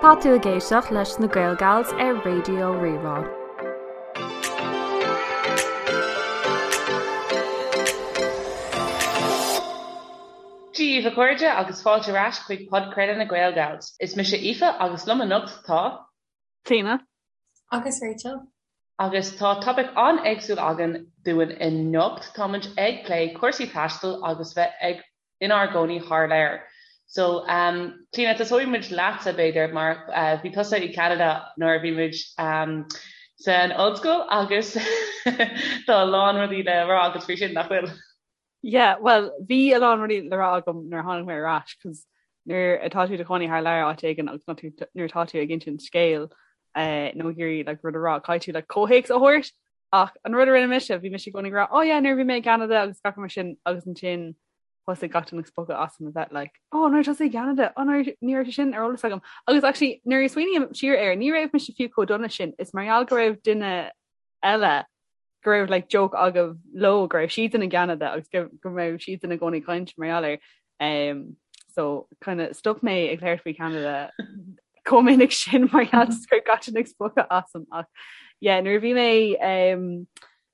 Tá tú ag éisteacht leis na Gaelgals ar Raidió Rí-Rá. Dia daoibh a chairde agus fáilte ar ais chuig podchraoladh na Gaelgals. Is mise Aoife agus liom anocht tá. Clíona. Agus Rachel. Agus tá topaic an-éagsúil againn dúinn anocht. Táimid ag plé cúrsaí taistil agus bheith ag inár gcónaí thar lear. So, um, Clíona, tosóidh muid leatsa, b'fhéidir, mar uh, bhí tusa i Canada nuair a bhí muid um, san ollscoil agus tá a lán rudaí le rá agat faoi sin, nach bhfuil? Yeah, well, bhí a lán rudaí le rá agam nuair a tháinig mé ar ais, cos nuair atá tú i do chónaí thar lear áit éigin agus nuair atá tú ag insint scéil eh, nó ag iarraidh like, rud a rá, caithfidh tú like, comhthéacs a thabhairt ach an rud a rinne mise, bhí mise i gcónaí ag rá, oh yeah, nuair a bhí mé i gCanada agus gach mar sin agus ansin thosaigh gach duine ag spochadh asam a bheith like, oh, nuair tusa i gCanada, oh, nuair ní raibh sé sin ar eolas agam. Agus actually, nuair a smaoiním siar air, ní raibh mise fiú chomh dona sin, is mar gheall go raibh duine eile go raibh like joke agaibh leo go raibh siadsan i gCeanada agus go go raibh siadsan i gcónaí ag caint mar gheall air. Um, so kind of stop mé ag labhairt faoi Canada chomh minic sin mar gheall go raibh gach duine ag spochadh asam ach yeah, nuair a bhí mé um,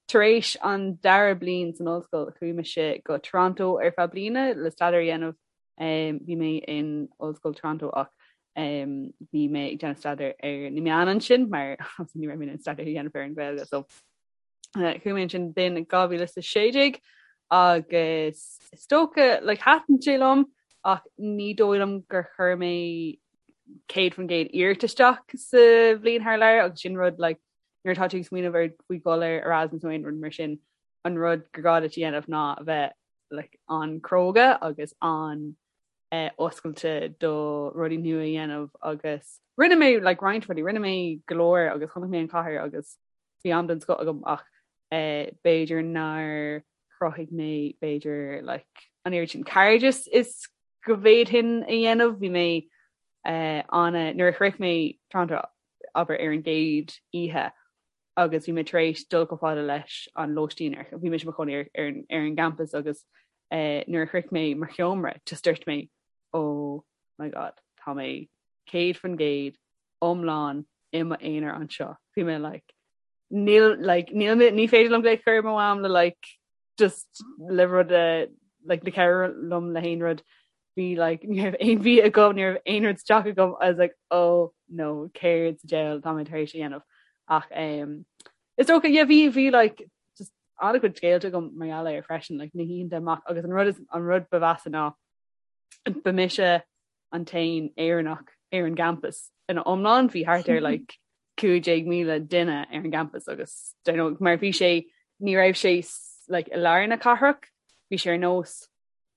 tar éis an dara bliain san ollscoil chuaigh mise go Toronto ar feadh bliana le staidéar a dhéanamh Um, bhí mé in Ollscoil Toronto ach um, bhí mé ag déanamh staidéar ar na meáin ansin mar ní raibh mé in staidéar a dhéanamh ar an Ghaeilge so uh, chuaigh mé ansin b'in 2016 agus is dócha like, thaitin sé liom ach ní dóigh liom gur chuir mé 100% iarracht isteach sa bhliain thar lear agus sin rud like, nuair atá tú ag smaoineamh ar faoi dhul ar Erasmus nó aon rud mar sin an rud gur gá duit a dhéanamh ná a bheith like, an-chróga agus an eh, oscailte do rudaí nua a dhéanamh agus rinne mé like, roinnt rudaí, rinne mé go leor agus chonaic mé an chathair agus bhí am den scoth agam ach eh, b'fhéidir nár chruthaigh mé b'fhéidir like, an oiread sin cairdeas is go bhféadfainn a dhéanamh bhí mé eh, an nuair a shroich mé Toronto abair ar an gcéad oíche agus bhí mé tar éis dul chomh fada leis an lóistín ar bhí mise i mo chónaí ar ar ar an gcampas agus eh, nuair a shroich mé mo sheomra just dúirt mé oh my god tá mé 100% iomlán i m'aonar anseo. Bhí mé like níl like níl mé ní féidir liom glaoch a chur ar mo mham le like just le rud a like le cabhrú liom le haon rud bhí like ní raibh aon bhia agam ní raibh aon rud sa teach agam I was like oh no céard sa diabhal tá mé tar éis a dhéanamh ach um, is dócha yeah bhí bhí like just an-chuid scéalta agam mar gheall air freisin like na hoícheanta amach agus an rud is an rud ba mheasa ná ba mise an t-aon Éireannach ar an gcampas ina iomlán bhí thart ar like 15,000 duine ar an gcampas agus don't know, mar bhí sé ní raibh sé like i lár na cathrach bhí sé ar nós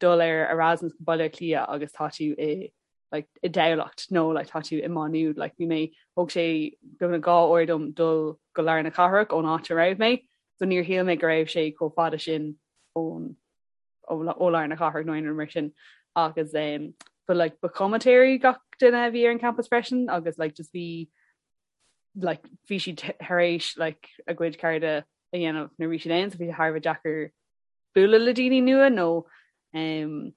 dul ar Erasmus go Baile Átha Cliath agus tá tú i like i dTamhlacht nó like tá tú i Má Nuad like bhí mé thóg sé beagnach 2 uair dom dul go lár na cathrach ón áit a raibh mé so níor shíl mé go raibh sé chomh fada sin ón ó lár na cathrach nó aon rud mar sin agus um, but like ba chomaitéirí gach duine a bhí ar an campus freisin agus like just bhí like bhí siad tar éis like a gcuid cairde a dhéanamh nuair bhí siad ann so bhí sé thar a bheith deacair bualadh le daoine nua nó um,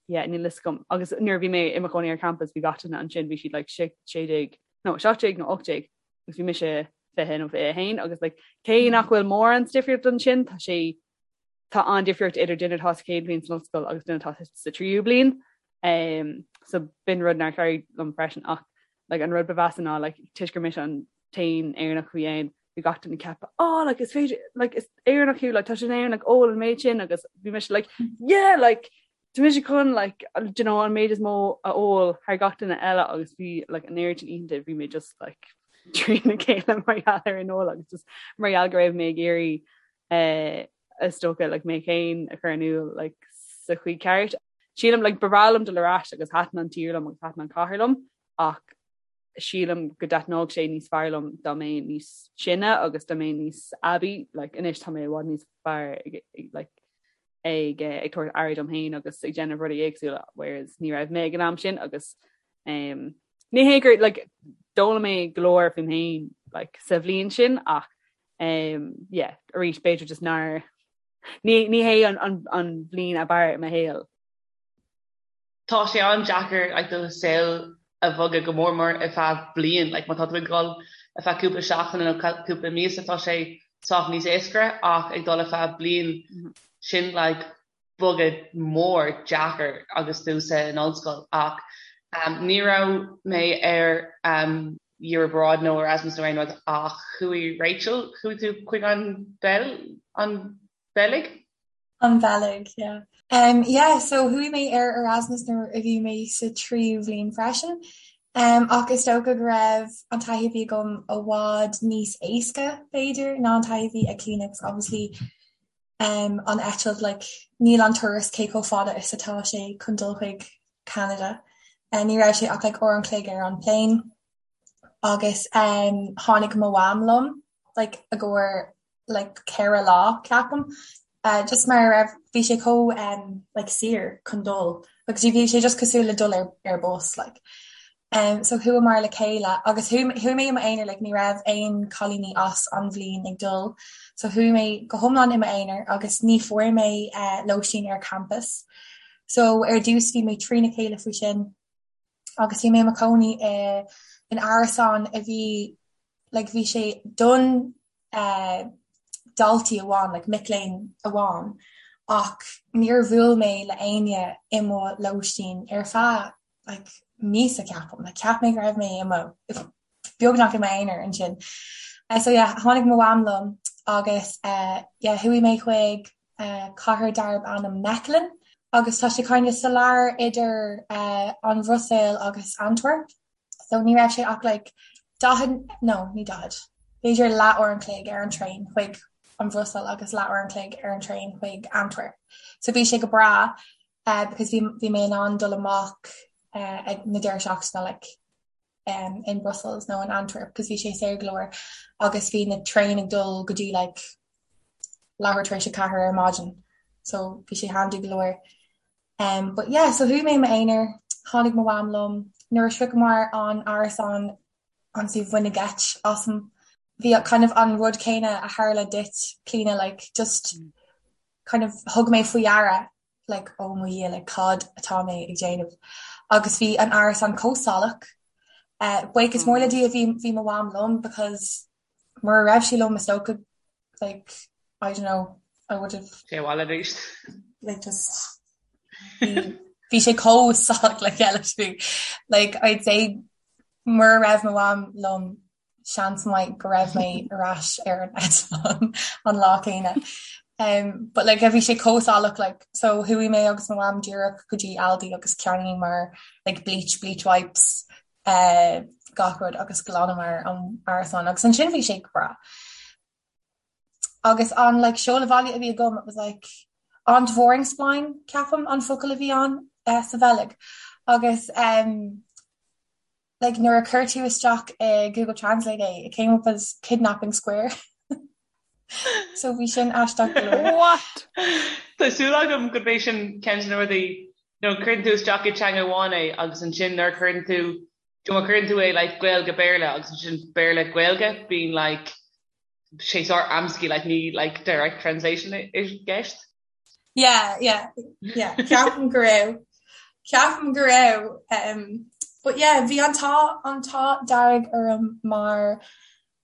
yeah, níl fhios agam agus nuair a bhí mé i mo chónaí ar campus bhí gach duine ansin bhí siad like 16 nó 17 nó 18 agus bhí mise 20 nó 21 agus like cé nach bhfuil mórán difríocht ansin tá sé tá an-difríocht idir duine atá sa chéad bhliain san ollscoil agus duine atá sa tríú bliain. Um, so b'in rud nár chabhraigh liom freisin ach like, an rud ba mheasa ná like, toisc gur mise an t-aon Éireannach a bhí ann, bhí gach duine ag ceapadh, oh, like, is féidir, like, is Éireannach thú, like, tá sé in Éirinn, like, ól an méid sin agus bhí mise like, yeah, like, tá mise chun like, do you know, an méid is mó a ól thar gach duine eile agus bhí like, an oiread sin oícheanta bhí mé just like, trína chéile mar gheall ar an ól agus just mar gheall go raibh mé ag iarraidh eh, is dócha like, mé féin a chur in iúl like, sa chaoi ceart. Sílim like, ba bhreá liom dul ar ais agus thaitin an tír liom agus thaitin an chathair liom ach sílim go dtaitneodh sé níos fearr liom dá mbeinn níos sine agus dá mbeinn níos aibí like, anois tá mé i bhfad níos fearr ag, ag, like, ag, eh, ag tabhairt aire dom féin agus ag déanamh rudaí éagsúla whereas ní raibh mé ag an am sin agus um, ní hé gur like, d'fhoghlaim mé go leor faoim féin like, sa bhliain sin ach um, yeah, arís b'fhéidir just nár ní, ní hé an, an, an bhliain ab fhearr i mo shaol. Tá sé an-deacair like, do saol. a bhogadh go mór mór ar feadh bliain, like má tá tú ag dul ar feadh cúpla seachtaine nó cúpla míosa tá sé sách níos éasca ach ag dul ar feadh bliain sin like bogadh mór deacair agus tú san ollscoil ach um, ní raibh mé ar um, Year Abroad nó Erasmus nó aon rud ach chuaigh Rachel, chuaigh tú chuig an Bheil an Bheilg? An Bheilg, yeah. Um, yeah, so chuaigh mé ar Erasmus nuair a bhí mé sa tríú bhliain freisin. Um, ach is dócha go raibh an taithí a bhí agam i bhfad níos éasca, b'fhéidir, ná an taithí a bhí ag Clíona, 'cause obviously um, an eitilt, like, níl an turas cé chomh fada is atá sé chun dul chuig Canada. Uh, ní raibh sé ach like, uair an chloig ar an plane. Agus um, tháinig mo mham liom, like, i gcomhair like 4 lá ceapaim just mar a raibh bhí sé chomh um like saor chun dul agus bhí sé just cosúil le dul ar ar bus like. Um so chuamar le chéile agus chuaigh mé i m'aonar like ní raibh aon cailíní as an bhliain ag dul so chuaigh mé go hiomlán i m'aonar agus ní fuair mé uh, lóistín ar campus. So ar dtús bhí mé trína chéile faoi sin agus bhí mé i mo chónaí i in árasán a bhí like bhí sé don eh, daltaí amháin, like mic léinn amháin, ach níor bhuail mé le éinne i mo lóistín ar feadh like míosa ceapaim, like cheap mé go raibh mé i mo beagnach i m'aonar ansin. Eh, so yeah, tháinig mo mham liom agus eh, yeah, chuaigh mé chuig eh, cathair darb ainm Mechelen agus tá sé kind of sa lár idir eh, an Bhruiséil agus Antwerp. So ní raibh sé ach like 40, no, ní 40, b'fhéidir leath uair an chloig ar an traein chuig an Bhruiséil agus leath uair an chloig ar an traein chuig Antwerp. So bhí sé go breá uh, because bhí, bhí mé in ann dul amach uh, ag na deireadh seachtaine like, um, in Brussels nó in Antwerp because bhí sé saor go leor agus bhí na traein ag dul go dtí like, leathuair tar éis a ceathair ar maidin. So bhí sé handy go leor. Um, but yeah, so chuaigh mé i m'aonar, tháinig mo mham liom, nuair a shroicheamar an árasán honestly baineadh geit asam. Bhí kind of an rud céanna a tharla duit, Clíona, like just kind of thug mé faoi deara like oh mo Dhia, like cad atá mé ag déanamh. Agus bhí an árasán chomh salach. Uh, buíochas mór le Dia bhí bhí mo mham liom because mura raibh sí liom is dócha like I don't know I would have Sé abhaile arís. like just bhí sé chomh salach le chéile like I'd say mura raibh mo mham liom seans maith go raibh mé ar ais ar an eitleán an lá céanna. Um, but like bhí sé chomh salach like so chuaigh mé agus mo mham díreach go dtí Aldi agus cheannaíomar like bleach bleach wipes uh, gach rud agus ghlanamar an árasán agus ansin bhí sé go breá. Agus an like seoladh bhaile a bhí agam it was like Ontvoeringsplein ceapaim an focal a bhí ann uh, sa Bheilg agus um, like nuair a chuir tú isteach i Google Translate é it came up as kidnapping square. so bhí sin aisteach go leor. What? Tá súil agam gurb é sin ceann de na rudaí nó cuireann tú isteach i teanga amháin é agus ansin nuair a chuireann tú má chuireann tú é like Gaeilge Béarla agus ansin Béarla Gaeilge bíonn like sé sár amscaí like ní like direct translation i gceist. Yeah, yeah, yeah. Ceapaim go raibh. Ceapaim go raibh. Um, but yeah, bhí an t-ádh an t-ádh dearg orm mar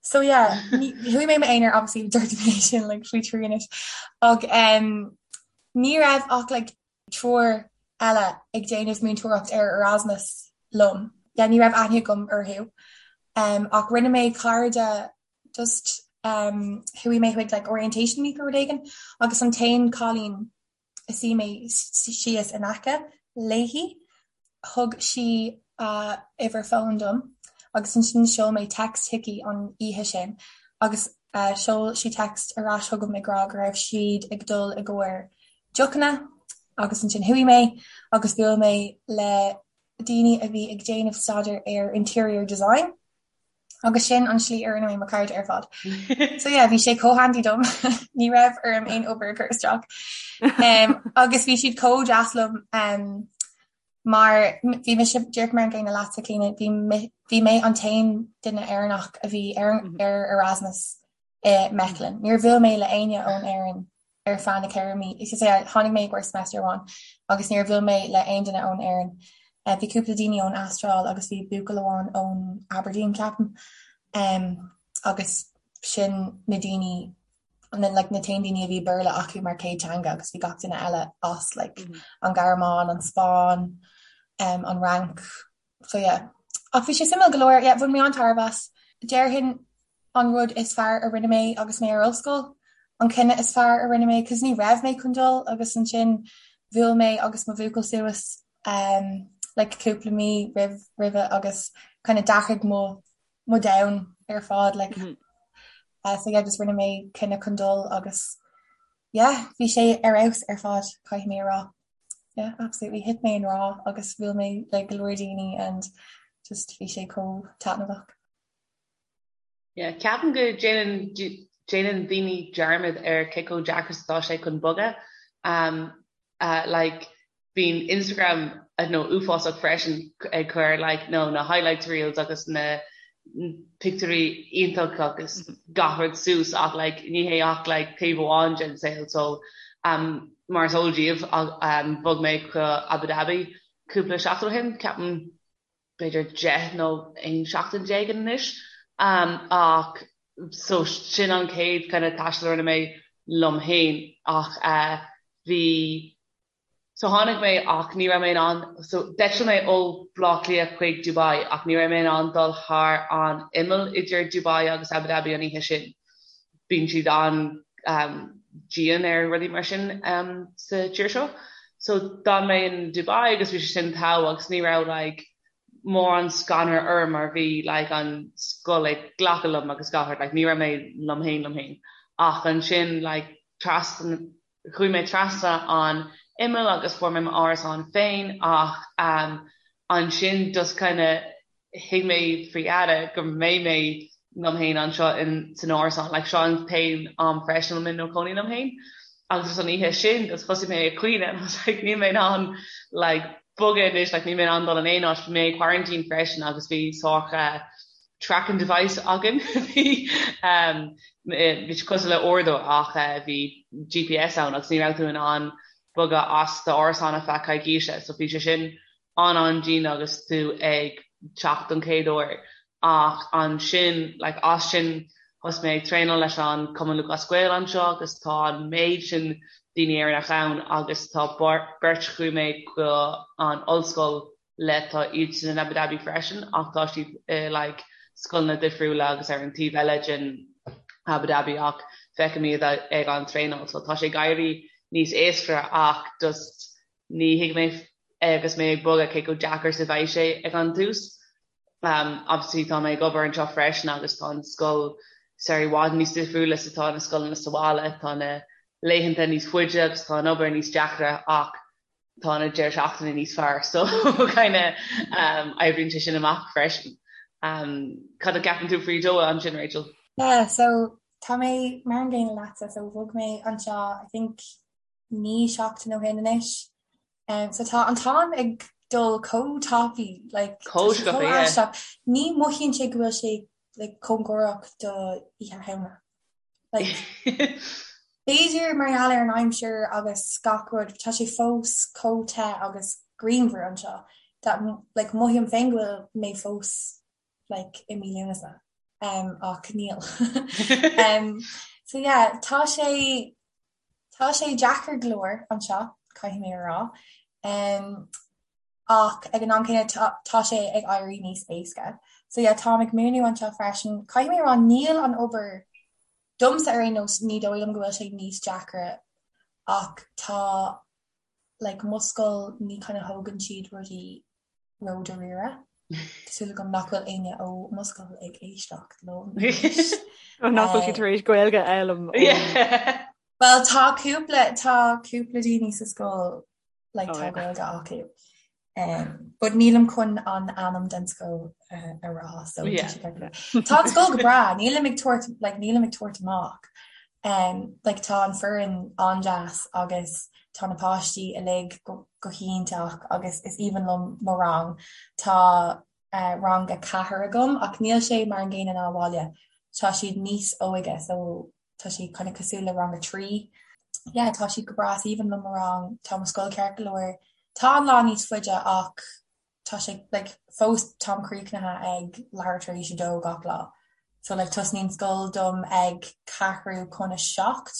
so yeah, chuaigh mé i m'aonar obviously dúirt mé sin like faoi thrí anois ach um, ní raibh ach like triúr eile ag déanamh múinteoireacht ar Erasmus liom. Yeah, ní raibh aithne agam orthu. Um, ach rinne mé cairde just um, chuaigh mé chuig like orientation week or rud éigin agus an t-aon cailín a suigh mé síos in aice léi thug sí a uimhir fóin dom agus ansin sheol mé text chuici an oíche sin agus uh, sheol sí text ar ais chugam ag rá go raibh siad ag dul i gcomhair deochanna agus ansin chuaigh mé agus bhuail mé le daoine a bhí ag déanamh staidéar ar interior design agus sin an slí a rinne mé mo cairde ar fad. So yeah, bhí sé chomh handy dom ní raibh orm aon obair a chur isteach. Um, agus bhí siad chomh deas liom um, mar bhí mise díreach mar an gcéanna leatsa Clíona, bhí mé an t-aon duine Éireannach a bhí ar, mhm. ar Erasmus i Mechelen. Níor bhuail mé le éinne ón Éirinn ar feadh na 4 mí. Is é tháinig mé i gcomhair semester amháin agus níor bhuail mé le aon duine ón Éirinn. Bhí cúpla daoine ón Astráil agus bhí buachaill amháin ón Aberdeen ceapaim. Agus sin na daoine na like na t-aon daoine a bhí Béarla acu mar chéad teanga agus bhí gach duine eile as like mm -hmm. an Ghearmáin, an Spáinn, um, an Fhrainc. So yeah. Ach bhí sé suimiúil go leor, yeah, bhain mé an-tairbhe as. Déarfainn an rud is fearr a rinne mé agus mé ar ollscoil, an cinneadh is fearr a rinne mé, cos ní raibh mé chun dul agus ansin bhuail mé agus mo bhuachaill suas um, like cúpla mí roimh roimhe agus kind of d'athraigh mo mo domhan ar fad like mm -hmm. uh, so yeah, just rinne mé cinneadh chun dul agus yeah, bhí sé ar fheabhas ar fad caithfidh mé a rá. Yeah, absolutely thit mé i ngrá agus bhuail mé le go leor daoine and just bhí sé chomh taitneamhach. Yeah, ceapaim go déanann déanann daoine dearmad ar cé chomh deacair is atá sé chun bogadh. Um, uh, like, bíonn Instagram I don't know uafásach freisin ag cur like no na highlights reels agus na pictiúirí iontach agus gach rud suas ach like ní hé ach like taobh amháin den saol so um, mar is eol daoibh um, bhog mé go Abu Dhabi cúpla seachtain ó shin ceapaim b'fhéidir 10 nó 11 seachtain anois um, ach so sin an chéad kind of taisteal a rinne mé liom féin ach uh, bhí So tháinig mé ach ní raibh mé in ann, so d'eitil mé ó Bhaile Átha Cliath chuig Dubai ach ní raibh mé in ann dul thar an imeall idir Dubai agus Abu Dhabi an oíche sin. Bíonn siad an-dian ar rudaí mar sin sa tír seo. So d'fhan mé in Dubai agus bhí sé sin togha agus ní raibh like mórán scanradh orm mar bhí like an scoil ag glacadh liom agus gach rud like ní raibh mé liom féin liom féin. Ach ansin like trasna Chuaigh mé trasna an imeall agus fuair mé m'árasán féin ach ansin just kind of thuig mé faoi dheireadh go mbeidh mé liom féin anseo in san árasán like seo an t-aon am freisin a bhfuil mé i mo chónaí liom féin agus just an oíche sin just thosaigh mé ag caoineadh and I was like níl mé in ann like bogadh anois like níl mé in ann dul in aon áit bhí mé i quarantine freisin agus bhí sórt tracking device againn bhí bhí sé cosúil le uaireadóir ach bhí GPS ann agus ní raibh tú in ann bogadh as d'árasán ar feadh coicíse so bhí sé sin an-an-dian agus tú ag teacht don chéad uair ach ansin like as sin thosaigh mé ag traenáil leis an Cumann Lúthchleas Gael anseo agus tá an méid sin daoine Éireannach ann agus tá beirt chuaigh mé go an ollscoil le tá iadsan in Abu Dhabi freisin ach tá siad i like scoileanna difriúla agus ar an taobh eile den Abu Dhabi ach feicim iad ag an traenáil so tá sé ag éirí níos éasca ach just ní thuig mé agus mé ag bogadh cé chomh deacair is a bheidh sé ag an tús. Um, obviously tá mé ag obair anseo freisin agus tá an scoil sórt i bhfad níos difriúla is atá na scoileanna sa bhaile, tá na laethanta níos faide agus tá an obair níos deacra ach tá na deireadh seachtaine níos fearr so kind of um, oibríonn sé sin amach freisin. Um, cad a cheapann tú faoi Doha ansin Rachel? Yeah, so tá mé mar an gcéanna leatsa, so bhog mé anseo I think 9 seachtain ó shin anois. Um, so tá an t-am ag dul chomh tapaidh, like, chomh aisteach. Ní mothaíonn sé go bhfuil sé like, cóngarach do Oíche Shamhna. Like, b'fhéidir mar gheall ar an aimsir agus gach rud, tá sé fós chomh te agus grianmhar anseo that like, mothaím féin go bhfuil mé fós like, i mí Lúnasa. Um, ach níl. um, so yeah, tá sé tá sé deacair go leor anseo, caithfidh mé a rá. Um, ach ag an am céanna tá sé ag éirí níos éasca. So yeah, táim ag múineadh anseo freisin. Caithfidh mé a rá níl an obair domsa ar aon nós ní dóigh liom go bhfuil sé níos deacra ach tá like mo scoil ní kind of thógann siad rudaí ródháiríre. Tá súil agam nach bhfuil éinne ó mo scoil ag éisteacht liom. Nach bhfuil siad tar éis Gaeilge a fhoghlaim. Well tá cúpla tá cúpla daoine sa scoil like tá Gaeilge acu. Um, but nílim chun an ainm den scoil uh, a rá so yeah. Tá an scoil go breá, nílim ag tabhairt like, nílim ag tabhairt amach. Um, like, tá an foireann an-deas agus tá na páistí uilig go, go hiontach agus is aoibhinn liom mo rang. Tá uh, rang a ceathair agam ach níl sé mar an gcéanna ná abhaile. Tá siad níos óige so tá siad kind of cosúil le rang a 3. Yeah, tá siad go breá is aoibhinn liom mo rang, tá mo scoil ceart go leor. Tá an lá níos faide ach. tá sé like fós táim críochnaithe ag leathuair tar éis a dó gach lá. So like tosnaíonn scoil dom ag ceathrú chun a 7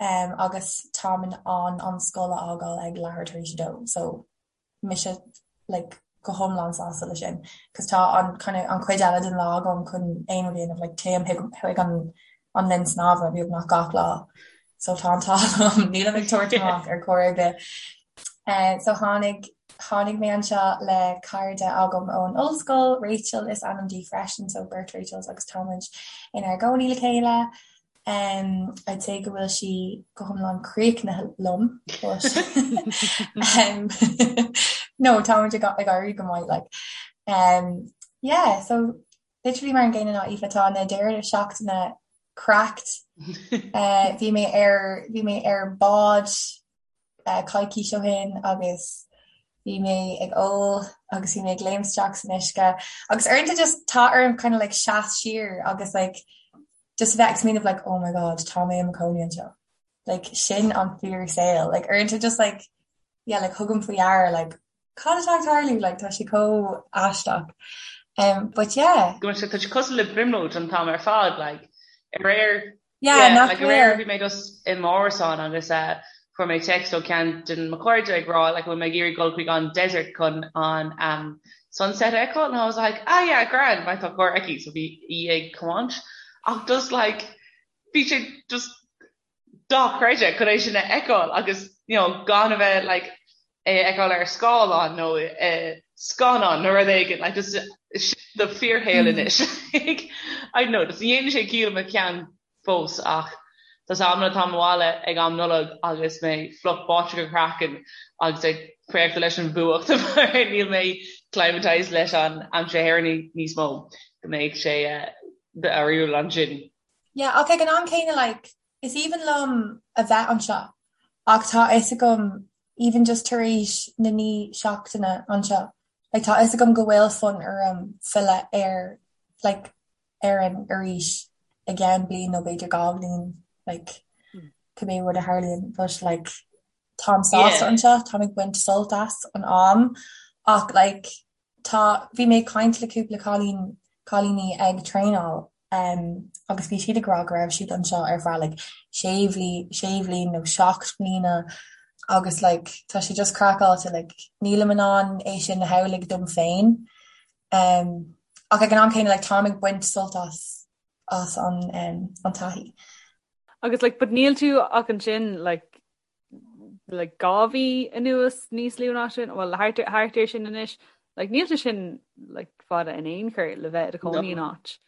um, agus táim in ann an scoil a fhágáil ag leathuair tar éis a dó. So mise like go hiomlán sásta le sin cos tá an kind of an chuid eile den lá agam chun aon rud a dhéanamh like téim chuig an an linn snámha beagnach gach lá so tá an t-ádh liom nílim ag tabhairt amach ar chor ar bith. Uh, so tháinig tháinig mé anseo le cairde agam ón ollscoil, Rachel is ainm di freisin, so beirt Rachels agus táimid inár gcónaí le chéile. Um, I'd say go bhfuil sí go hiomlán críochnaithe liom but um, no táimid ag ag éirí go maith like. Um, yeah, so literally mar an gcéanna ná Aoife tá na deireadh seachtaine cracked. Uh, bhí mé ar bhí mé ar bád uh, coicís ó shin agus bhí mé ag ól agus bhí mé ag léim isteach san uisce agus uaireanta just tá orm kind of like seas siar agus like just a bheith ag smaoineamh like oh my god tá mé i mo chónaí anseo like sin an fíor saol like uaireanta just like yeah like thugaim faoi deara like cad atá ag tarlú like tá sé chomh aisteach um but yeah Go tá sé cosúil le brionglóid an t-am ar fad like aréir yeah yeah like aréir bhí mé just i m'árasán agus uh, fuair mé text ó ceann de mo chairde ag rá like bhfuil mé ag iarraidh dul chuig an desert chun an um, sunset a fheiceáil and I was like ah yeah grand mar tá carr aici so bhí í ag tiomáint ach just like bhí sé just dochreidte chun é sin a fheiceáil agus you know gan a bheith like é a fheiceáil ar scáileán nó uh, scannán nó rud éigin like just do fíorshaol anois I don't know just ní dhéanann sé ciall i mo cheann fós ach tá amanna táim abhaile ag am Nollag agus mé fliuch báite go craiceann agus ag préachta leis an bhfuacht mar níl mé climatized leis an aimsir Éireannach níos mó go mbeidh sé difriúil ansin. Yeah, ach ag an am céanna like is aoibhinn liom a bheith anseo ach tá a fhios agam even just tar éis na naoi seachtaine anseo like tá a fhios agam go bhfuil fonn orm filleadh ar like Éirinn arís i gceann bliain nó b'fhéidir 2 bhliain like cibé rud a tharlaíonn but like táim sásta anseo, táim ag baint sult as an am ach like tá bhí mé ag caint le cúpla cailín cailíní ag traenáil um, agus bhí siad ag rá go raibh siad anseo ar feadh like sé bhli sé bhliain nó 7 mbliana agus like tá sé just craiceáilte like nílim in ann é sin a shamhlú dom féin Um, ach ag an am céanna like, táim ag baint sult as as an, um, an taithí. Agus like, but níl tú ach ansin like, like 2 mhí anuas níos lú ná sin, well thart thart ar sin anois, like níl sé sin like fada in aon chor le bheith i do chónaí in áit.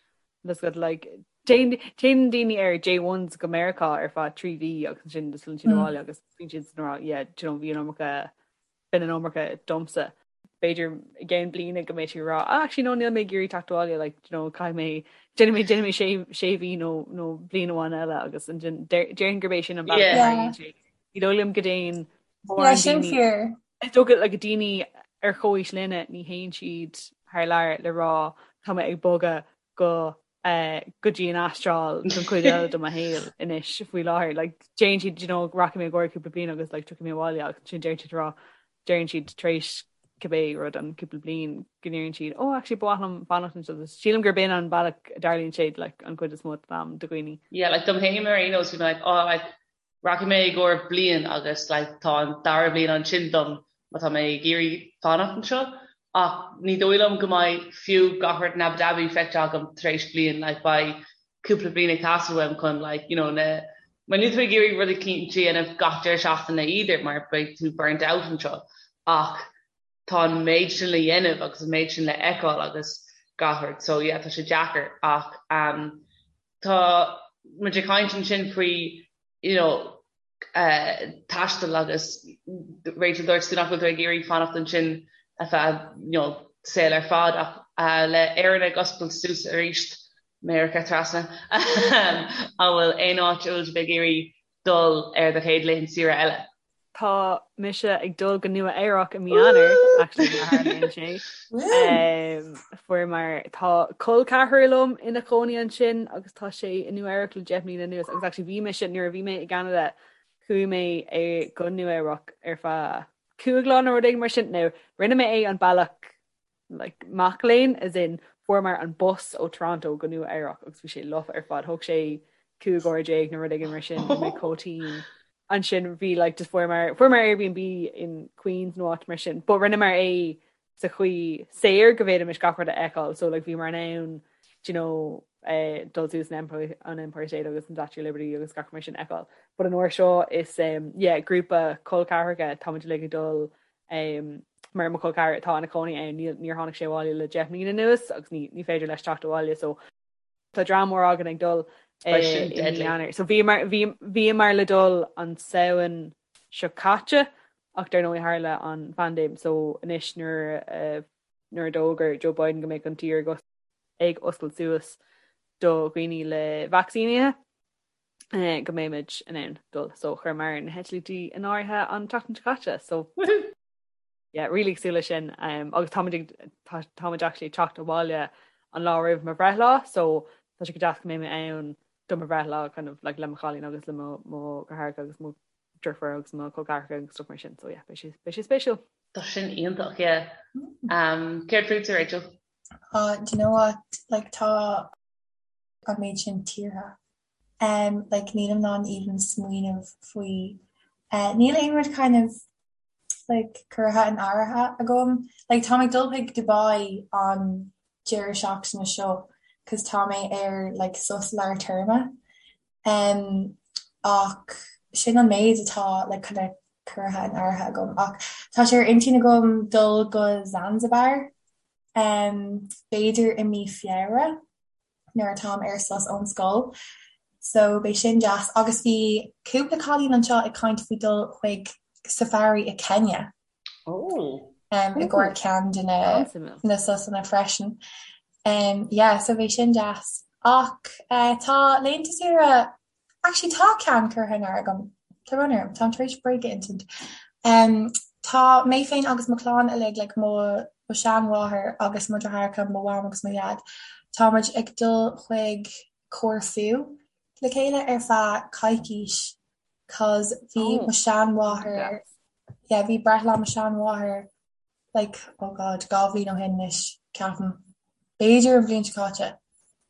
That's good like téann téann daoine ar J1s go Meiriceá ar feadh 3 mhí agus ansin just filleann siad abhaile agus bíonn siad san rá yeah, do you know, bhí an iomarca b'in an iomarca domsa. B'fhéidir i gceann bliana go mbeidh tú ag rá ah actually no níl mé ag iarraidh teacht abhaile like you know caithfidh mé déanfaidh mé déanfaidh mé sé sé mhí nó nó bliain amháin eile agus ansin déarfainn gurb é sin an bealach a tharlaíonn sé. Ní dóigh liom go dtéann mórán Yeah, sin daoine fíor. Is dócha like daoine ar chomhaois linne ní théann siad thar lear le rá tá mé ag bogadh go go dtí an Astráil don chuid eile de mo shaol anois faoi láthair. Like, déanann siad, you know, rachaidh mé i gcomhair cúpla bliain agus like, tiocfaidh mé abhaile agus ansin deireann siad rá, deireann siad tar éis cibé rud an cúpla bliain go ndeireann siad, oh actually ba mhaith liom fanacht anseo. Sílim gurb in an bealach a dtarlaíonn sé like, an chuid is mó den am do dhaoine. Yeah, like dom féin ar aon nós bhí mé like, oh like rachaidh mé i gcomhair bliain agus like tá an dara bliain ansin dom má tá mé ag iarraidh fanacht anseo ach ní dóigh liom go mbeidh fiú gach rud in Abu Dhabi feicthe agam tar éis bliain like beidh cúpla bliain ag teastáil uaim chun like you know na mar níl tú ag iarraidh rudaí cinnte a dhéanamh gach deireadh seachtaine either mar beidh tú burnt out anseo ach tá an méid sin le dhéanamh agus an méid sin le fheiceáil agus gach rud so yeah tá sé deacair ach um, Tá muid ag caint ansin faoi you know taisteal agus Rachel dúirt tú nach bhfuil tú ag iarraidh fanacht ansin ar feadh you know saol ar fad ach le Éirinn ag oscailt suas arís, Meiriceá trasna, an bhfuil aon áit a bhfuil sibh ag iarraidh dul ar do chéad laethanta saoire eile? Tá mise ag dul go Nua Eabhrac i mí Eanáir, actually, mar tharlaíonn sé. Fuair mar tá col ceathrar liom ina chónaí ansin agus tá sé i Nua Eabhrac le 10 mbliana anuas agus actually bhí mise nuair a bhí mé i gCeanada chuaigh mé go Nua Eabhrac ar feadh. 5 lá nó rud éigin mar sin. Now rinne mé é an bealach like mac léinn as in fuaireamar an bus ó Toronto go Nua Eabhrac agus bhí sé lofa ar fad. Thóg sé 15 uair nó rud éigin mar sin bhí mé chomh tinn. Ansin bhí like just fuaireamar fuaireamar Airbnb in Queens nó áit mar sin but rinneamar é sa chaoi saor go bhféadfaimis gach rud a fheiceáil so like bhíomar in ann do you know eh, dul suas an Empire, an Empire State agus an Statue of Liberty agus gach mar sin a fheiceáil. But an uair seo is um, yeah, grúpa col ceathracha táimid uilig ag dul um, mar mo chol ceathar atá ina chónaí ann níl níor tháinig sé abhaile le 10 mbliana anuas agus ní, ní féidir leis teacht abhaile so tá dream mór againn ag dul Beidh sin i mí deadly. Eanáir. So bhíomar bhí bhíomar le dul an Samhain seo caite ach dar ndóigh tharla an phaindéim so anois nuair a nuair a d'fhógair Joe Biden go mbeadh an tír ag ag oscailt suas do dhaoine le vacsaínithe go mbeimid in ann dul. So chuireamar na heitiltí in áirithe an tseachtain seo caite. So Woohoo! yeah, really ag súil leis sin. Um, agus táimid ag tá táimid actually ag teacht abhaile an lá roimh mo bhreithlá, so tá sé go deas go mbeidh mé ann do mo bhreithlá kind of like le mo chailín agus le mo mo dheartháireacha agus mo deirfiúr agus mo chol ceathracha agus stuff mar sin. So yeah, beidh sé beidh sé spéisiúil. Tá sin iontach, yeah. Um, céard fútsa, Rachel? Uh, do you know what? Like tá an méid sin tíortha. Um, like nílim in ann even smaoineamh faoi. Uh, níl aon rud kind of like curtha in áirithe agam. Like tá mé ag dul chuig Dubai an deireadh seachtaine seo cos tá mé ar like sos lár téarma. Um, ach sin an méid atá like kind of curtha in áirithe agam. Ach tá sé ar intinn agam dul go Zanzibar um, b'fhéidir i mí Feabhra. nuair atáim ar sos ón scoil so beidh sin deas agus bhí cúpla cailín anseo ag caint faoi dul chuig safari i Kenya. Oh. Um, i gcomhair ceann de na na sosanna freisin. Um, yeah, so bheadh sin deas. Ach uh, tá laethanta saoire Actually tá ceann curtha in áirithe agam. Tá brón orm, táim tar éis bréag a insint. Um, tá mé féin agus mo chlann uilig, like mo mo sheanmháthair agus mo dheartháireacha, mo mham agus mo dhaid, tá muid ag dul chuig Corfu le chéile ar feadh coicís cos bhí Oh, mo sheanmháthair, yeah, bhí breithlá mo sheanmháthair like, oh God, 2 bhliain ó shin anois, ceapaim. B'fhéidir an bhliain seo caite.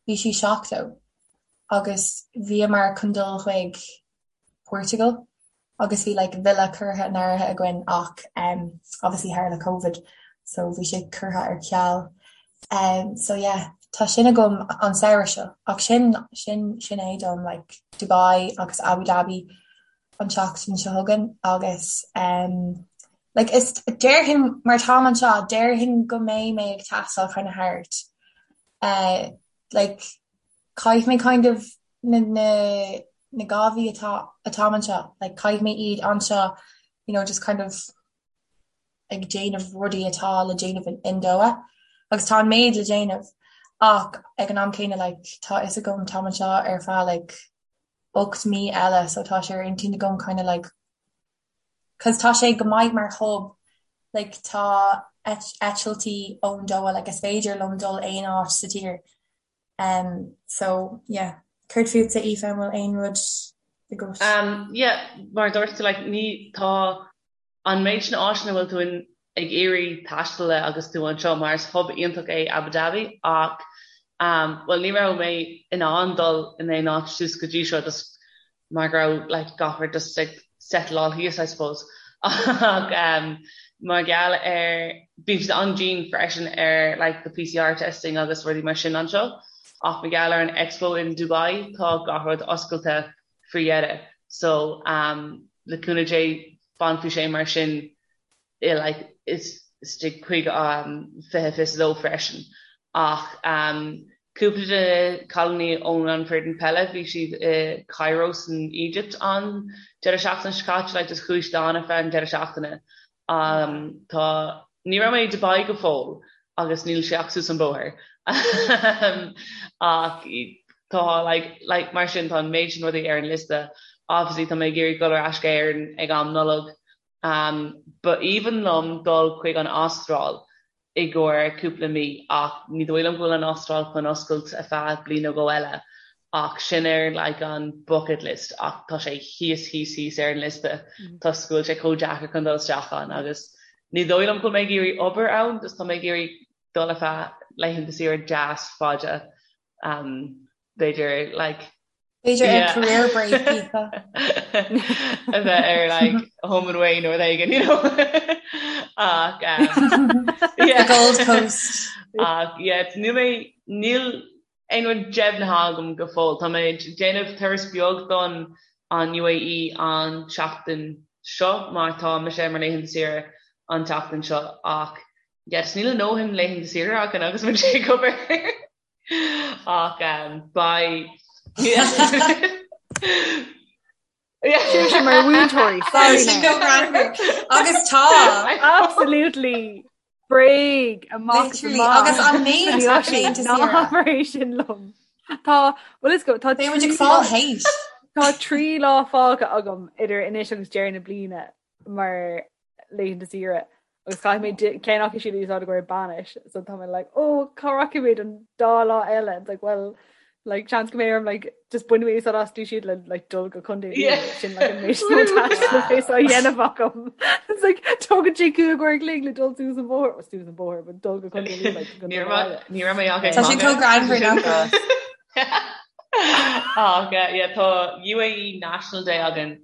Bhí sí 70 agus bhíomar chun dul chuig Portugal agus bhí like villa curtha in áirithe againn ach um, obviously tharla Covid so bhí sé curtha ar ceal. Um, so yeah, tá sin agam an samhradh seo ach sin sin sin é dom like Dubai agus Abu Dhabi an tseachtain seo chugainn agus um, like is déarfainn mar táim anseo déarfainn go mbeidh mé ag taisteal kind of thart uh, like caithfidh mé kind of na na na 2 mhí atá atáim anseo like caithfidh mé iad anseo you know just kind of ag déanamh rudaí atá le déanamh in, in Doha agus tá an méid le déanamh ach ag an am céanna like tá fhios agam táim anseo ar feadh like 8 mí eile so tá sé ar intinn agam kind of like cause tá sé go maith mar hub like tá eitiltí ón Doha like is féidir liom dul aon áit sa tír um so yeah céard fútsa Aoife an bhfuil aon rud agat? Um yeah mar a dúirt tú like ní tá an méid sin áiteanna a bhfuil tú in ag iarraidh taisteal le agus tú anseo mar is hub iontach é Abu Dhabi ach um bhuel ní raibh mé in ann dul in aon áit suas go dtí seo just mar go raibh like gach rud just ag settleáil thíos I suppose ach um mar gheall ar bíonn siad an-dian freisin ar like the PCR testing agus rudaí mar sin anseo ach mar gheall ar an Expo in Dubai tá gach rud oscailte faoi dheireadh so um le cúnamh Dé fanfaidh sé mar sin i like istigh chuig 2022 freisin ach um cúpla de na cailíní ón an foireann peile bhí siad i Cairo san Egypt an deireadh seachtaine seo caite like just chuaigh siad ann ar feadh an deireadh seachtaine um tá ní raibh mé i Dubai go fóill agus níl sé ach suas an bóthar ach tá like like mar sin tá an méid sin rudaí ar an liosta obviously tá mé ag iarraidh dul ar ais go Éirinn ag am Nollag Um, ba aoibhinn liom dul chuig an Astráil i gcomhair cúpla mí ach ní dóigh liom go bhfuil an Astráil chun oscailt ar feadh bliain nó dhó eile. Ach sin ar like an bucket list ach tá sé thíos thíos thíos ar an liosta toisc go bhfuil sé chomh deacair chun dul isteach ann agus ní dóigh liom go bhfuil mé ag iarraidh obair ann just tá mé ag iarraidh dul ar feadh laethanta saoire deas fada um, b'fhéidir like B'fhéidir ar career break a bheith ar like home and away nó rud éigin you know ach um, yeah. The Gold Coast. Ach yeah, níl mé níl aon rud deimhnithe agam go fóill. Tá mé ag déanamh turas beag don an UAE an tseachtain seo mar tá mise ar mo laethanta saoire an tseachtain seo ach yes, níl a ndóthain laethanta saoire againn agus muid ag obair ach um, beidh Sin mar mhúinteoirí agus tá absolutely bréag amach agus an méid ná sin liom. Tá well is go tá fá héis. Tá 3 lá fágtha agam idir anois agus deireadh na bliana mar laethanta saoire agus caithfidh mé ceann acu siad a úsáid i gcomhair bainis so tá mé like oh cá rachaidh mé don dá lá eile it's like well like chance go mbeidh orm like just bainfidh mé úsáid as siad le like dul go Contae yeah. sin like an méid taistil a dhéanamh agam it's like tógann sé 5 uair an chloig le dul suas an bóthar suas an bóthar but dul go Contae Lú like go Ní raibh ní raibh mé ach ag Tá sé chomh greannmhar nach Ach yeah tá UAE National Day againn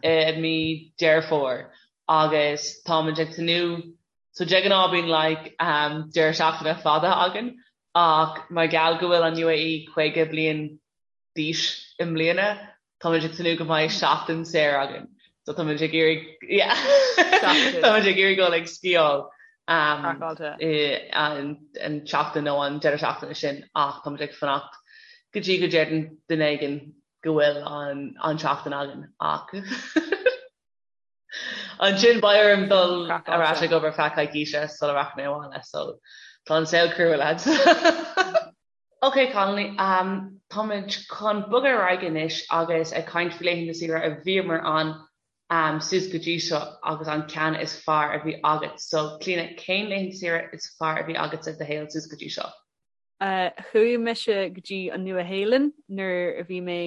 i mí Deireadh Fómhair agus táimid ag tnúth so de ghnáth bíonn like um, deireadh seachtaine fada againn ach mar gheall go bhfuil an UAE 50 bliain d'aois i mbliana táimid ag tnúth go mbeidh seachtain saor againn so táimid ag iarraidh yeah táimid ag iarraidh dul ag sciáil um, i, an, an tseachtain nó an deireadh seachtaine sin ach táimid ag fanacht go dtí go deireann duine éigin go bhfuil an tseachtain againn ach ansin beidh orm dul ar ais ag obair feadh coicíse sula rachaidh mé abhaile so tá an saol crua lads. Ok Connolly, um, táimid chun bogadh ar aghaidh anois agus ag caint faoi laethanta saoire a bhíomar ann um, suas go dtí seo agus an ceann is fearr a bhí agat. So Clíona, cén laethanta saoire is fearr a bhí agat sa do shaol suas go dtí seo? Chuaigh mise go dtí an Nua-Shéalainn nuair a bhí mé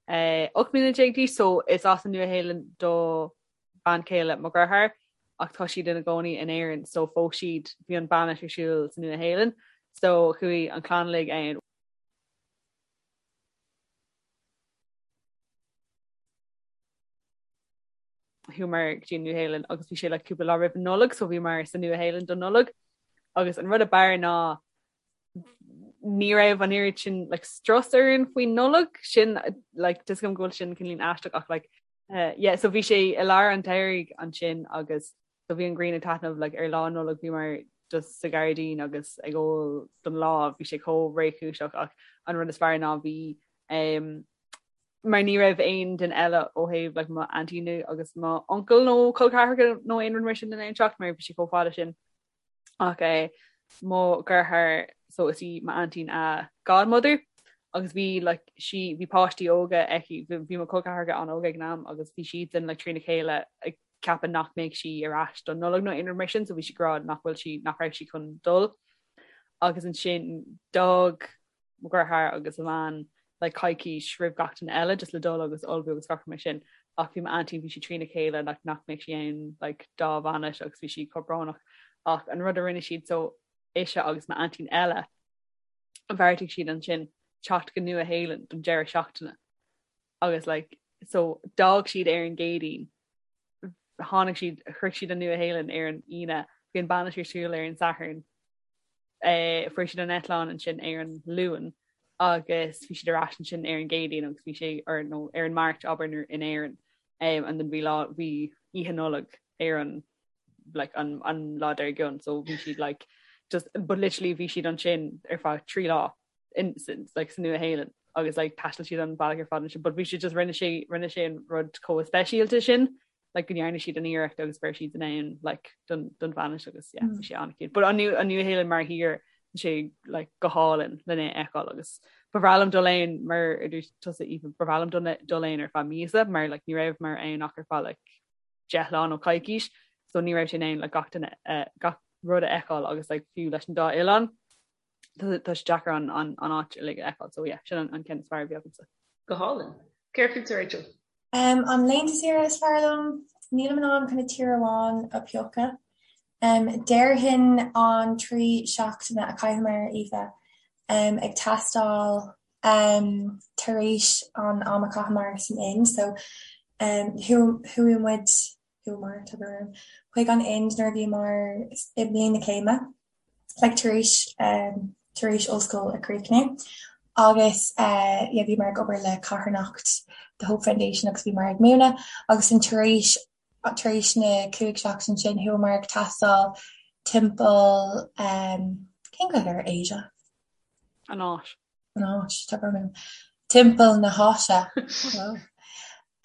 18 mbliana d'aois so is as an Nua-Shéalainn do bhean chéile mo dheartháir ach tá siad ina gcónaí in Éirinn so phós siad, bhí an bainis ar siúl sa Nua-Shéalainn so chuaigh an chlann uilig ann. Chuamar go dtí an Nua-Shéalainn agus bhí sé like cúpla lá roimh an Nollaig so bhíomar sa Nua-Shéalainn don Nollaig agus an rud a b'fhearr ná ní raibh an oiread sin like strus orainn faoin Nollaig sin like tá a fhios agam go bhfuil sin cineál aisteach ach like uh, yeah so bhí sé i lár an tsamhraidh ansin agus so bhí an ghrian ag taitneamh like ar lá Nollag bhíomar just sa ghairdín agus ag ól don lá bhí sé chomh réchúiseach ach an rud is fearr ná bhí um, mar ní raibh aon duine eile ó thaobh like mo aintín nó agus mo uncail nó col ceathracha nó aon rud mar sin in ann teacht mar bhí sé chomh fada sin ach é mo dheartháir so is í m'aintín a godmother agus bhí like sí bhí páistí óga aici bhí mo chol ceathracha an-óg ag an am agus bhí siadsan like trína chéile ag ceapadh nach mbeadh sí ar ais don Nollaig nó aon rud mar sin so bhí sí ag rá nach bhfuil sí nach raibh sí chun dul agus ansin d'fhág mo dheartháir agus a bhean like coicís roimh gach duine eile just le dul agus ullmhú agus gach rud mar sin ach bhí m'aintín bhí sí trína chéile like nach mbeadh sí ann like dá bhainis agus bhí sí chomh brónach ach an rud a rinne siad so ise agus m'aintín eile bheartaigh siad ansin teacht go Nua Shéalainn don deireadh seachtaine agus like so d'fhág siad ar an gCéadaoin tháinig siad shroich siad an Nua Shéalainn ar an Aoine bhí an bainis ar siúl ar an Satharn Fuair siad an eitleán ansin ar an Luan agus bhí siad ar ais ansin ar an gCéadaoin agus bhí sé ar nó ar an Máirt abair in Éirinn and then bhí lá bhí Oíche Nollag ar an like an an lá dár gcionn so bhí siad like just but literally bhí siad ansin ar feadh 3 lá in like sa Nua Shéalainn agus like thaistil siad an bealach ar fad ansin but bhí siad just rinne sé rinne sé an rud chomh speisialta sin like go ndearna siad an iarracht agus go raibh siad in ann like don don bhainis agus yeah bhí sé an-cute. But an Nua an Nua-Shéalainn mar thír tá sé like go hálainn lena fheiceáil agus ba bhreá liom dul ann mar a dúirt tusa Aoife ba bhreá liom dul dul ann ar feadh míosa mar like ní rabhamar ann ach ar feadh like 10 lá nó coicís so ní raibh sé in ann like gach duine uh, gach rud a fheiceáil agus like fiú leis an dá oileán. Tá sé deacair an an an áit uilig a fheiceáil so yeah sin an an ceann is fearr a bhí agamsa. Go hálainn. Céard fútsa Rachel? Um, an laethanta saoire is fearr liom, nílim in ann kind of tír amháin a phiocadh. Um, déarfainn an 3 seachtaine a chaitheamar, Aoife, um, ag taisteal um, tar éis an am a chaitheamar san Ind. So, um, chuaigh muid, chuamar, tá brón orm, chuig an Ind nuair a bhíomar i mbliain na céime. like tar éis um, tar éis ollscoil a chríochnú agus uh, yeah, bhíomar ag obair le carthanacht the Hope Foundation agus bhíomar ag múineadh agus an tar éis tar éis na 5 seachtain sin chuamar ag taisteal timpeall um, cén Ghaeilge ar Asia? An Áis. An Áis, tá brón orm. Timpeall na hÁise.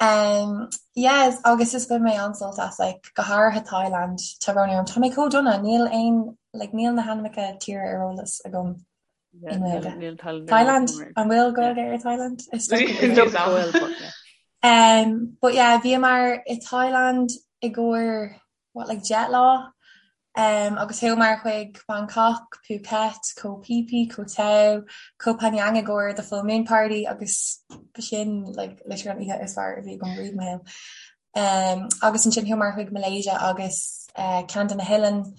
Um, yes, agus is bhain mé an-sult as, like, go háirithe Thailand, tá brón orm. Tá mé chomh dona, níl aon, like, níl na hainmneacha tíre ar eolas agam i nGaeilge. Thailand, an bhfuil Gaeilge ar Thailand? Is dócha go bhfuil. Um, but yeah, bhíomar i Thailand i gcomhair what, like 10 lá? Um, agus chuamar chuig Bangkok, Phuket, Koh Phi Phi, Koh Tao, Koh Phangan i gcomhair the full moon party agus b'shin like, literally an oíche is fearr a bhí agam riamh i mo shaol. Um, agus ansin chuamar chuig Malaysia agus uh, ceann de na hoileáin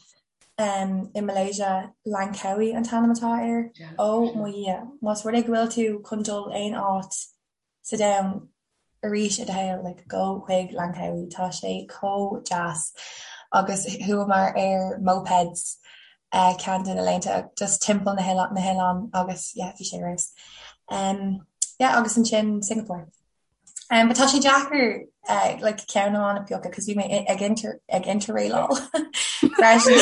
um, i Malaysia, Langkawi an t-ainm atá air. Yeah. Ó mo Dhia, más rud é go bhfuil tú chun dul aon áit sa domhan arís i do shaol, like gabh chuig Langkawi, tá sé chomh deas agus chuamar ar mopeds ceann de na laethanta just timpeall na na hoileán agus yeah bhí sé ar fheabhas. Um yeah agus ansin Singapore. Um but tá sé deacair uh, like ceann amháin a phiocadh cos bhí mé ag inter ag interrailáil freisin.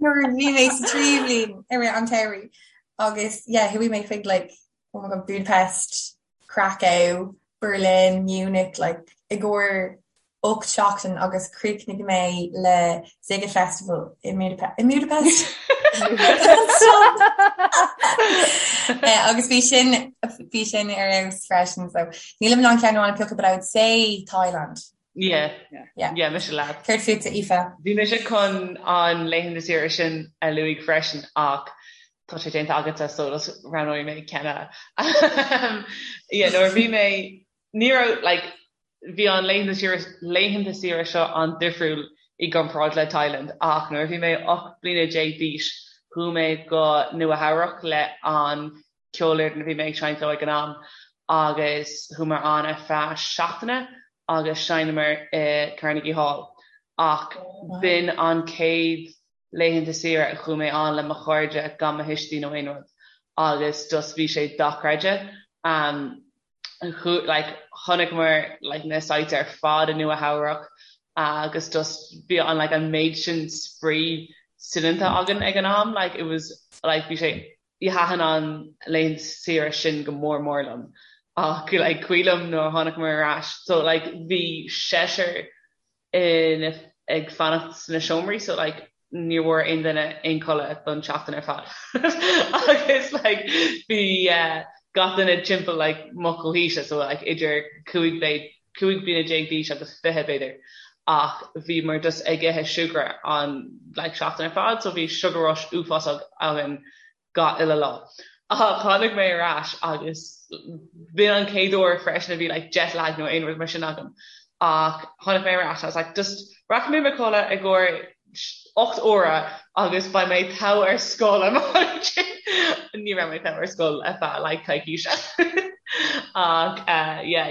Nuair a bhí mé sa tríú bliain i rith an tsamhraidh agus yeah chuaigh mé chuig like oh my god, Budapest, Krakow, Berlin, Munich, like i gcomhair 8 seachtain agus chríochnaigh mé le Sziget Festival i i Budapest. Eh, agus bhí sin bhí sin ar fheabhas freisin so nílim in ann ceann amháin a phiocadh but I would say Thailand. Yeah. Yeah. Yeah, mise leat. Céard fútsa Aoife? Bhí mise chun an laethanta saoire sin a luaigh freisin ach tá sé déanta agatsa so just roghnóidh mé ceann eile. Yeah, nuair a bhí mé ní raibh like bhí an laethanta saoire laethanta saoire seo an-difriúil i gcomparáid le Thailand ach nuair a bhí mé 18 bliana d'aois chuaigh mé go Nua Eabhrac le an ceolfhoireann a bhí mé ag seinnt leo ag an am agus chuamar ann ar feadh seachtaine agus sheinneamar i Carnegie Hall ach b'in an chéad laethanta saoire a chuaigh mé ann le mo chairde gan mo thuistí nó aon rud agus just bhí sé dochreidte. Um, like, chonaiceamar like, na sites ar fad i Nua Eabhrac agus just bhí an like, an méid sin spraoi soineanta againn ag an am like, it was like, bhí sé Thaitin an laethanta saoire sin go mór mór liom ach like cuimhin liom nuair a tháinig ar ais so like bhí seisear in ag fanacht sna seomraí so like ní bhfuair aon duine aon codladh don tseachtain ar fad agus like bhí eh, gach duine timpeall like mo chomhaoise so like idir 15 15 bliana d'aois agus 20 b'fhéidir ach bhíomar just ag ithe siúcra an like seachtain ar fad so bhí sugar rush uafásach againn gach uile lá. Ach tháinig mé ar ais agus b'in an chéad uair freisin a bhí like jet lag nó aon rud mar sin agam ach tháinig mé ar ais I was like just rachaidh mé mo chodladh i gcomhair 8 uaire agus beidh mé togha ar scoil ansin. Ní raibh mé togha ar scoil ar feadh like coicíse. Ach uh, yeah,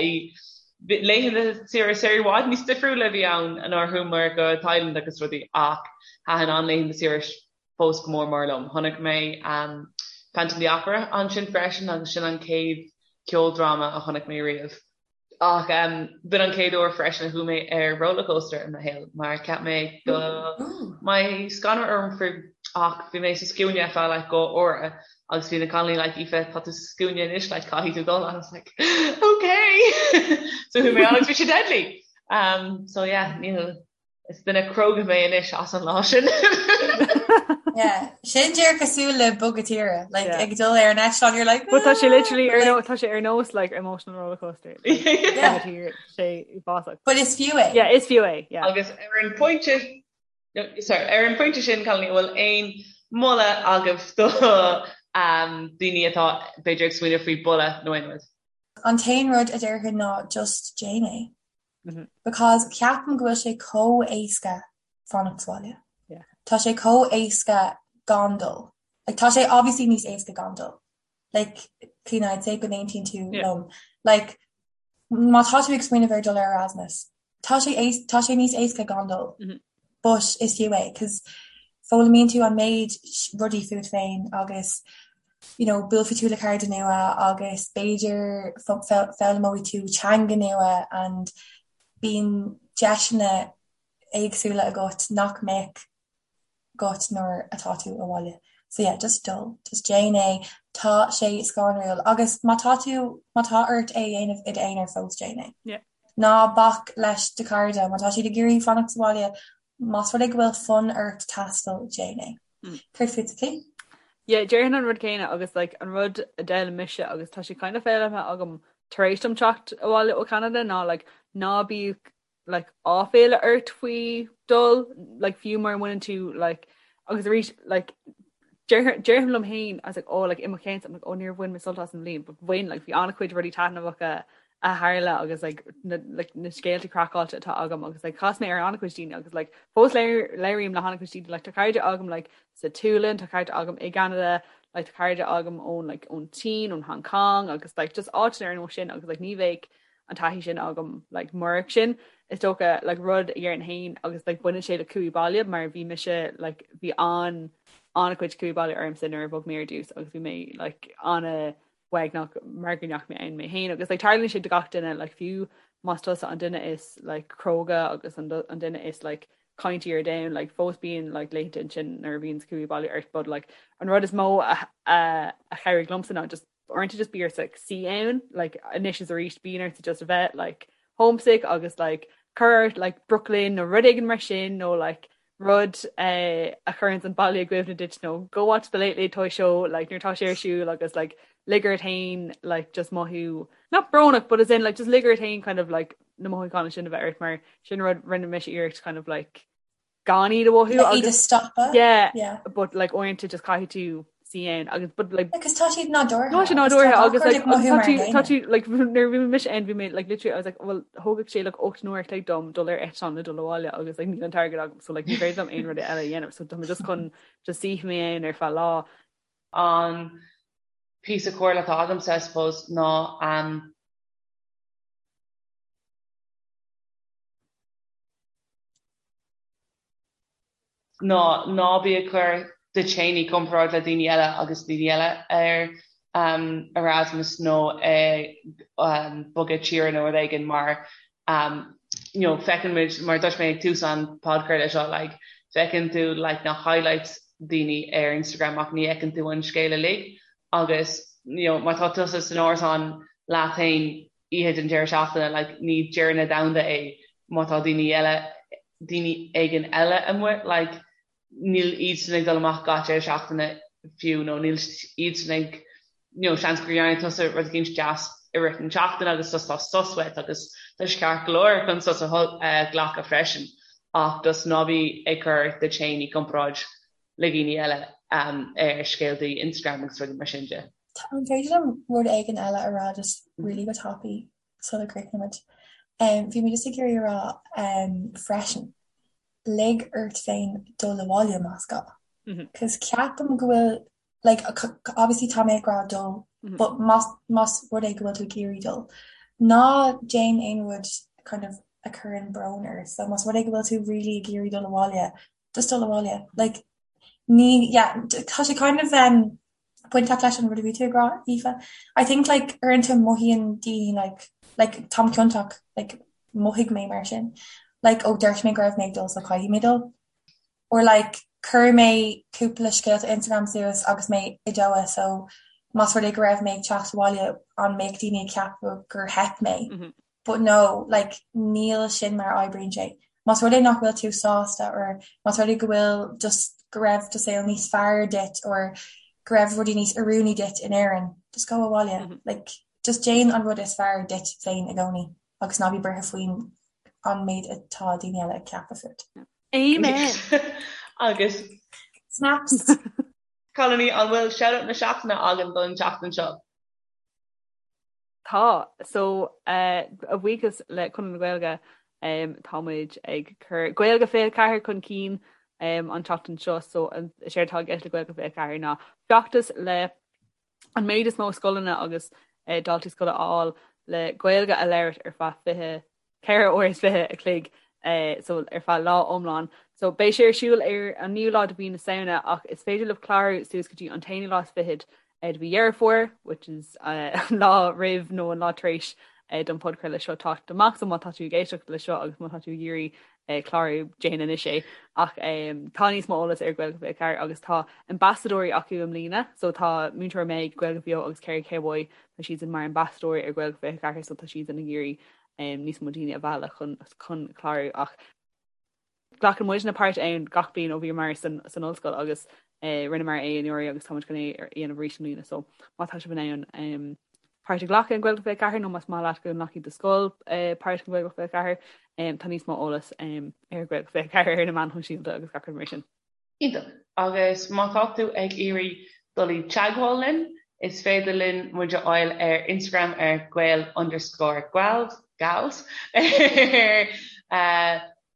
laethanta saoire saoire i bhfad níos difriúla a bhí ann nuair a chuamar go Thailand agus rudaí ach thaitin an laethanta saoire fós go mór mór liom. Chonaic mé um, Phantom of the Opera ansin freisin agus sin an chéad ceoldráma a chonaic mé riamh. Ach b'in an chéad uair freisin a chuaigh mé ar rollercoaster i mo shaol mar cheap mé go mbeadh scanradh orm faoi ach bhí mé sa scuaine ar feadh like dhá uair agus bhí na cailíní like Aoife tá tú sa scuaine anois like caithfidh tú dul and I was like okay so chuaigh mé ann agus bhí sé deadly um so yeah níl Is duine cróga mé anois as an lá sin. Yeah, sin díreach cosúil le bogadh tíre, like yeah. ag dul ar an eitleán you're like But tá sé literally ar nó tá sé ar nós like emotional roller coaster. Yeah. sé uafásach. But is fiú é. Yeah, is fiú é. Yeah. Agus ar an pointe sorry, ar an pointe sin cailíní bhfuil aon moladh agaibh do daoine atá b'fhéidir ag smaoineamh faoi boladh nó aon rud? An t-aon rud a déarfainn ná just déan é. Because ceapaim go bhfuil sé chomh éasca fanacht sa bhaile. Tá sé chomh éasca gan dul. Like tá sé obviously níos éasca gan dul. Like Clíona I'd say go n-aontaíonn tú liom. Like má tá tú ag smaoineamh ar dul ar Erasmus, tá sé tá sé níos éasca gan dul. But is fiú é, 'cause foghlaimíonn tú an méid rudaí fút féin agus you know buailfidh tú le cairde nua agus b'fhéidir foghlaimeoidh tú teanga nua and bíonn deiseanna éagsúla agat nach mbeadh agat nuair atá tú abhaile. So yeah, just dul, just déan é, tá sé scanrúil agus má tá tú, má tá ort é a dhéanamh i d'aonar fós déan é. Yeah. Ná bac leis do chairde, má tá siad ag iarraidh fanacht sa bhaile, más rud é go bhfuil fonn ort taisteal, déan é. Mm. Céard fútsa, Clí? Yeah, déarfainn an rud céanna agus like, an rud a d'fhoghlaim mise agus tá sé kind of foghlamtha agam tar éis dom teacht abhaile ó Canada ná like, ná bíodh like áiféala ort faoi dul like fiú mura mbaineann tú like agus arís like déarfainn liom féin I was like oh like i mo cheann I'm like oh níor bhain mé sult as an bhliain but bhain like bhí an-chuid rudaí taitneamhacha a tharla agus like na like na scéalta craiceáilte atá agam agus like chas mé ar an-chuid daoine agus like fós labhraím le han-chuid daoine like tá cairde agam like sa tSualainn tá cairde agam i gCeanada like tá cairde agam ón like ón tSín ón Hong Kong agus like just áiteanna ar nós sin agus like ní bheadh an taithí sin agam like murach sin is dócha like rud a dhéarfainn féin agus like baineann sé le cumhaidh baile mar bhí mise like bhí an an-chuid cumhaidh baile ormsa nuair a bhog mé ar dtús agus bhí mé like an-uaigneach mar go ndeachaigh mé ann mé féin agus like tarlaíonn sé do gach duine like fiú más tusa an duine is like cróga agus an an duine is like caintí ar domhan like fós bíonn like laethanta ansin nuair a bhíonn cumhaidh baile ort but like an rud is mó a a a chabhraigh liomsa ná just uaireanta just bí ort like suí ann like anois is arís bíonn ort just a bheith like homesick agus like cur ort like Brooklyn nó rud éigin mar sin nó like rud eh, a chuireann an baile i gcuimhne duit nó go watch the Late Late Toy Show like nuair atá sé ar siúl agus like lig ort féin like just mothú not brónach but as in like just lig ort féin kind of like na mothúcháin sin a bheith ort mar sin rud rinne mise iarracht kind of like gan iad a mhothú Like iad a stopadh. Yeah, Yeah. but like uaireanta just caithfidh tú suí ann agus but like Because tá siad nádúrtha. Tá sé nádúrtha agus like agus tá tú tá tú like nuair a bhí mise ann bhí mé like literally I was like well thógfadh sé like 8 n-uair a chloig dom dul ar eitleán le dul abhaile agus like níl an t-airgead agam so like ní féidir liom aon rud eile a dhéanamh so tá mé just chun just suí mé ann ar feadh lá. An píosa comhairle atá agamsa I suppose ná um, ná ná bí ag cur duit féin i gcomparáid le daoine eile agus daoine eile ar Erasmus nó ag bogadh tíre nó rud éigin mar you know feiceann muid mar dúirt mé ag tús an podchraoladh seo like feiceann tú like na highlights daoine ar Instagram ach ní fheiceann tú an scéal uilig agus you know má tá tusa san árasán leat féin oíche den deireadh seachtaine like ní deireadh na domhanda é má tá daoine eile daoine éigin eile amuigh like níl iadsan ag dul amach gach deireadh seachtaine fiú nó níl iadsan ag you know seans gur dhearna tusa rud eicínt deas i rith na seachtaine agus just tá sos uait agus tá sé ceart go leor chun sos a ghlacadh freisin ach just ná bí ag cur duit féin i gcomparáid le daoine eile ar scéaltaí Instagram agus rudaí mar sin de. An féidir liom rud éigin eile a rá just really go tapaidh sula gcríochnaímid? Bhí mé just ag iarraidh a rá freisin, lig ort féin dul abhaile más gá. Cos ceapaim go bhfuil, like, obviously tá mé ag rá dul, but más más rud é go bhfuil tú ag iarraidh dul, ná déan aon rud kind of a chuireann brón ort. So más rud é go bhfuil tú really ag iarraidh dul abhaile, just dul abhaile. Like, ní, yeah, tá sé kind of um, bainteach leis an rud a bhí tú ag rá, Aoife. I think like uaireanta mothaíonn daoine like, like táim ciontach, like mhothaigh mé mar sin. Like ó dúirt mé go raibh mé ag dul so caithfidh mé dul. Or like chuir mé cúpla scéalta Instagram suas agus mé i Doha so más rud é go raibh mé ag teacht abhaile an mbeadh daoine ag ceapadh gur theip mé. Mm -hmm. But no, like, níl sin mar a oibríonn sé. Más rud é nach bhfuil tú sásta or más rud é go bhfuil just go raibh do saol níos fearr duit or go raibh rudaí níos oiriúnaí duit in Éirinn, just go abhaile. Mm -hmm. Like, just déan an rud is fearr duit féin i gcónaí agus ná bí buartha faoin an méid atá daoine eile ag ceapadh fút. Amen! Agus Snaps! Cailíní, an bhfuil shout-out na seachtaine againn don tseachtain seo? Tá. So, a bhuíochas le Conradh na Gaeilge, tá muid ag cur Gaeilge 24 chun cinn an tseachtain seo. So, is éard atá i gceist le Gaeilge 24 ná feachtas le an méid is mó scoileanna agus daltaí scoile a fháil le Gaeilge a labhairt ar feadh 24 uair is 20 a chloig so ar feadh lá iomlán. So beidh sé ar siúl ar an naoú lá de mhí na Samhna ach is féidir libh clárú suas go dtí an t-aonú lá is fichead de mhí Dheireadh Fómhair, which is an lá roimh nó an lá tar éis don podchraoladh seo teacht amach. So má tá tú ag éisteacht le seo agus má tá tú ag iarraidh clárú, déan anois é. Ach tá níos mó eolas ar Gaeilge 24 agus tá ambasadóirí acu i mbliana. So tá Múinteoir Meg, Gaeilge Bheo agus Kerry Cowboy, tá siadsan mar ambasadóirí ar Gaeilge 24 so tá siadsan ag iarraidh níos mó daoine a mhealladh chun chun clárú ach glacann muidne páirt ann gach bliain ó bhíomar san san ollscoil agus rinneamar é anuraidh agus táimid chun é a dhéanamh arís i mbliana so má tá sibh in ann páirt a ghlacadh in Gaeilge 24 nó más maith leat go nglacfaidh do scoil páirt in Gaeilge 24 tá níos mó eolas ar Gaeilge 24 ar na meáin shóisialta agus gach rud mar sin. Iontach. Agus má tá tú ag iarraidh dul i dteagmháil linn, is féidir linn muid a fháil ar Instagram ar gael underscore gals, gals, ar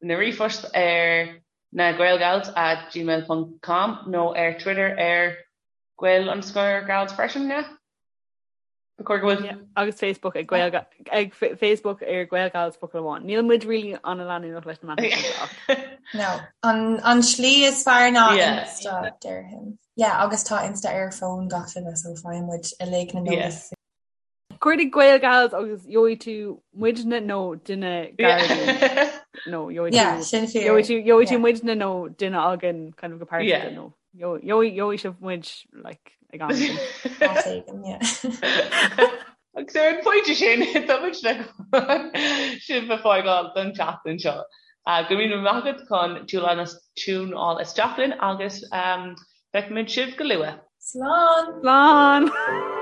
na ríomhphost ar na gaelgals at gmail ponc com nó ar Twitter ar gael underscore gals freisin, yeah? Ba chóir go bhfuil. Yeah, agus Facebook ag Gael ag Facebook ar Gaelgals focal amháin. Níl muid really an-leanúnach leis na meáin shóisialta ach. No, an, an slí is fearr ná yeah. Insta déarfainn. Yeah, agus tá Insta ar fón gach duine so faigheann muid uilig na yeah. Cuardaigh Gaelgals agus gheobhaidh tú muidne nó duine gar nó gheobhaidh yeah, tú gheobhaidh tú gheobhaidh tú muidne nó duine againn kind of go pearsanta nó Gheobhaidh sibh muid like ag am éigin. Áit éigin, yeah. Agus ar an phointe sin, tá muid le sibh a fhágáil don tseachtain seo. Go raibh míle maith agat chun tiúnáil isteach linn agus feicfimid sibh go luath. Slán! Slán!